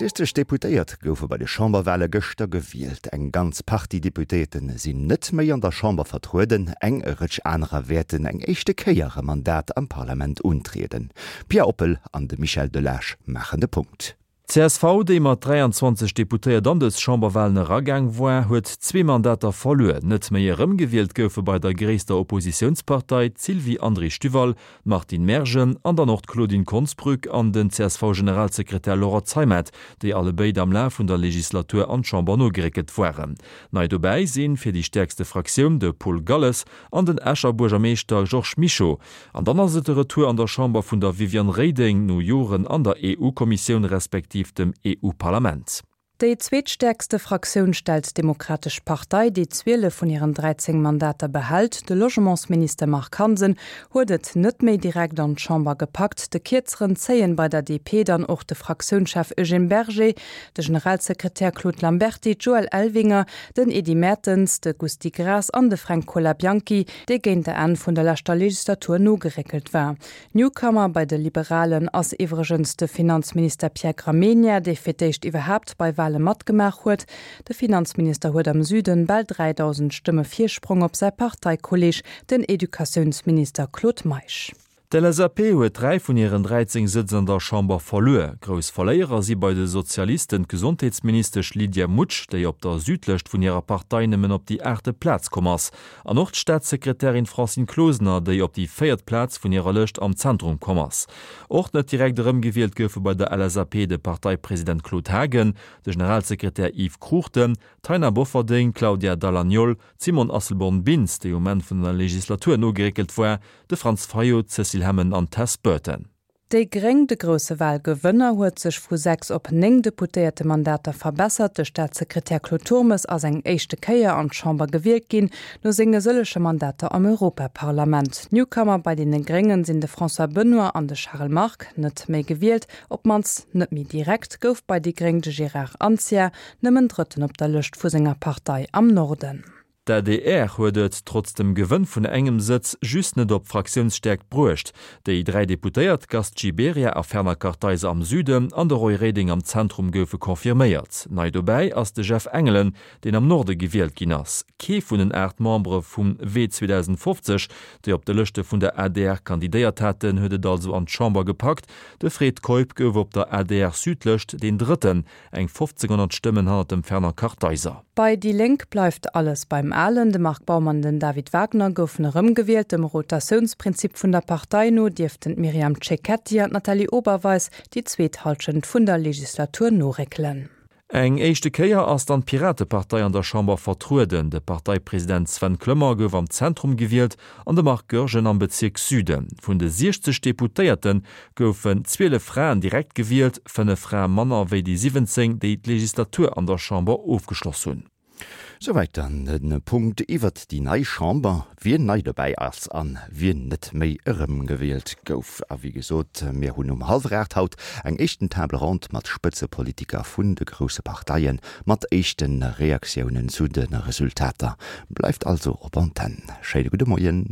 60 Deputéiert goufe bei de Chamberwale gëschter gewielt. Eng ganz Partie Deputéierte sinn net méi an der Chamber vertrueden, eng Rëtsch anerer wäerten eng éischte Kéier e Mandat am Parlament untrieden. D'Pia Oppel an de Michel Delage maachen de Punkt. D'CSV, déi mat 23 Deputéiert an dës Chamberwalen eragaang war, huet zwee Mandater verluer. Net méi erëmgewielt goufe bei der gréisster Oppositiounspartei d'Sylvie André-Stuval, d'Martine Mergen an dann och d'Claudine Konsbrück an den CSV-Generalsekretär Laurent Zeimet, déi allebéid am Laf vun der Legislatur an d'Chamber nogeréckelt waren. Nei dobäi sinn fir déi stäerkste Fraktioun de Paul Galles an den Escher Buergermeeschter Georges Mischo. An dann ass et de Retour an der Chamber vun der Viviane Reding no Joren an der EU-Kommissioun respektiv dem EU-Parlament. Déi zweetstäerkste Fraktioun stellt d'Demokratesch Partei, déi 12 vun hiren 13 Mandater behält. De Logementsminister Marc Hansen huet et net méi direkt an d'Chamber gepackt. De Kierzeren zéien bei der DP dann och de Fraktiounschef Eugène Berger, de Generalsekretär Claude Lamberty, d'Joëlle Elvinger, den Edy Mertens, de Gusty Graas an de Fränk Colabianchi, dee géint der Enn vun der leschter Legislatur nogeréckelt war. Newcomer bei de Liberalen ass iwwregens de Finanzminister Pierre Gramegna, dee fir d'éischt iwwerhaapt bei Wale matgemaach huet. De Finanzminister huet am Süden bal 3.000 Stëmme Virsprong op säi Parteikolleeg, den Educatiounsminister Claude Meisch. D'LSAP huet 3 vun hiren 13 Sëtz an der Chamber verluer. Grouss Verléierer si bei de Sozialisten d'Gesondheetsministesch Lydia Mutsch, déi op der Südlëscht vun hirer Partei nëmmen op déi aachte Plaz komm ass, an och d'Staatssekretärin Francine Closener, déi op déi véiert Plaz vun hirer Lëscht am Zentrum komm ass. Och net direkt erëmgewielt goufe bei der LSAP de Parteipresident Claude Haagen, de Generalsekretär Yves Cruchten, d'Taina Bofferding, d'Claudia Dall'Agnol, D'Simone Asselborn-Bintz, déi um Enn vun der Legislatur nogeréckelt war, de Franz Fayot, d'Cécile Hemmen an d'Tess Burton. Déi Gréng, de grousse Walgewënner, huet sech vu 6 op 9 Deputéiertemandater verbessert. De Staatssekretär Claude Turmes ass eng éischte Kéier an d'Chamber gewielt ginn, no senge sëllege Mandater am Europaparlament. Newcomer bei deene Gréngen sinn de François Benoy an de Charel Margue. Net méi gewielt, op d'mannst net méi direkt, gouf bei déi Gréng de Gérard Anzia, Nëmmen Drëtten op der Lëscht vu senger Partei am Norden. D'adr huet et, trotz dem Gewënn vun engem Sëtz, just net op Fraktiounsstäerkt bruecht. Déi 3 Deputéiert Gast Gibéryen a Fernand Kartheiser am Süden an de Roy Reding am Zentrum goufe confirméiert. Nei dobäi ass de Jeff Engelen, deen am Norde gewielt ginn ass. Kee vun den 8 Membere vum Wee 2050, déi op de Lëschte vun der adr kandidéiert haten, huet et also an d'Chamber gepackt. De Fred Keup gouf op der ADR-Südlëscht deen Drëtten. Eng 1500 Stëmmen hannert dem Fernand Kartheiser. Bei déi Lénk bleift alles beim Alen. De Marc Baum an den David Wagner goufen erëmgewielt. Dem Rotatiounsprinzip vun der Partei no dierften d'Myriam Cecchetti an d'Nathalie Oberweis déi zweet Hallschent vun der Legislatur noréckelen. Eng éischte Kéier ass dann d'Piratepartei an der Chamber vertrueden. De Parteipresident Sven Clement gouf am Zentrum gewielt an de Marc Goergen am Bezierk Süden. Vun de 60 Deputéierte goufen 12 Fraen direkt gewielt, 5 Frae manner wéi déi 17, déi d'Legislatur an der Chamber ofgeschloss hunn. Souwäit dann de Punkt iwwert déi nei Chamber, wien nei dobäi ass an wien net méi erëmgewielt gouf. A wéi gesot, mir hunn um hallwer 8 haut eng éischten Table ronde mat Spëtzepolitiker vun de grousse Parteien, mat éischte Reaktiounen zu de Resultater. Bleift also op Antenn. Schéine gudde Moien.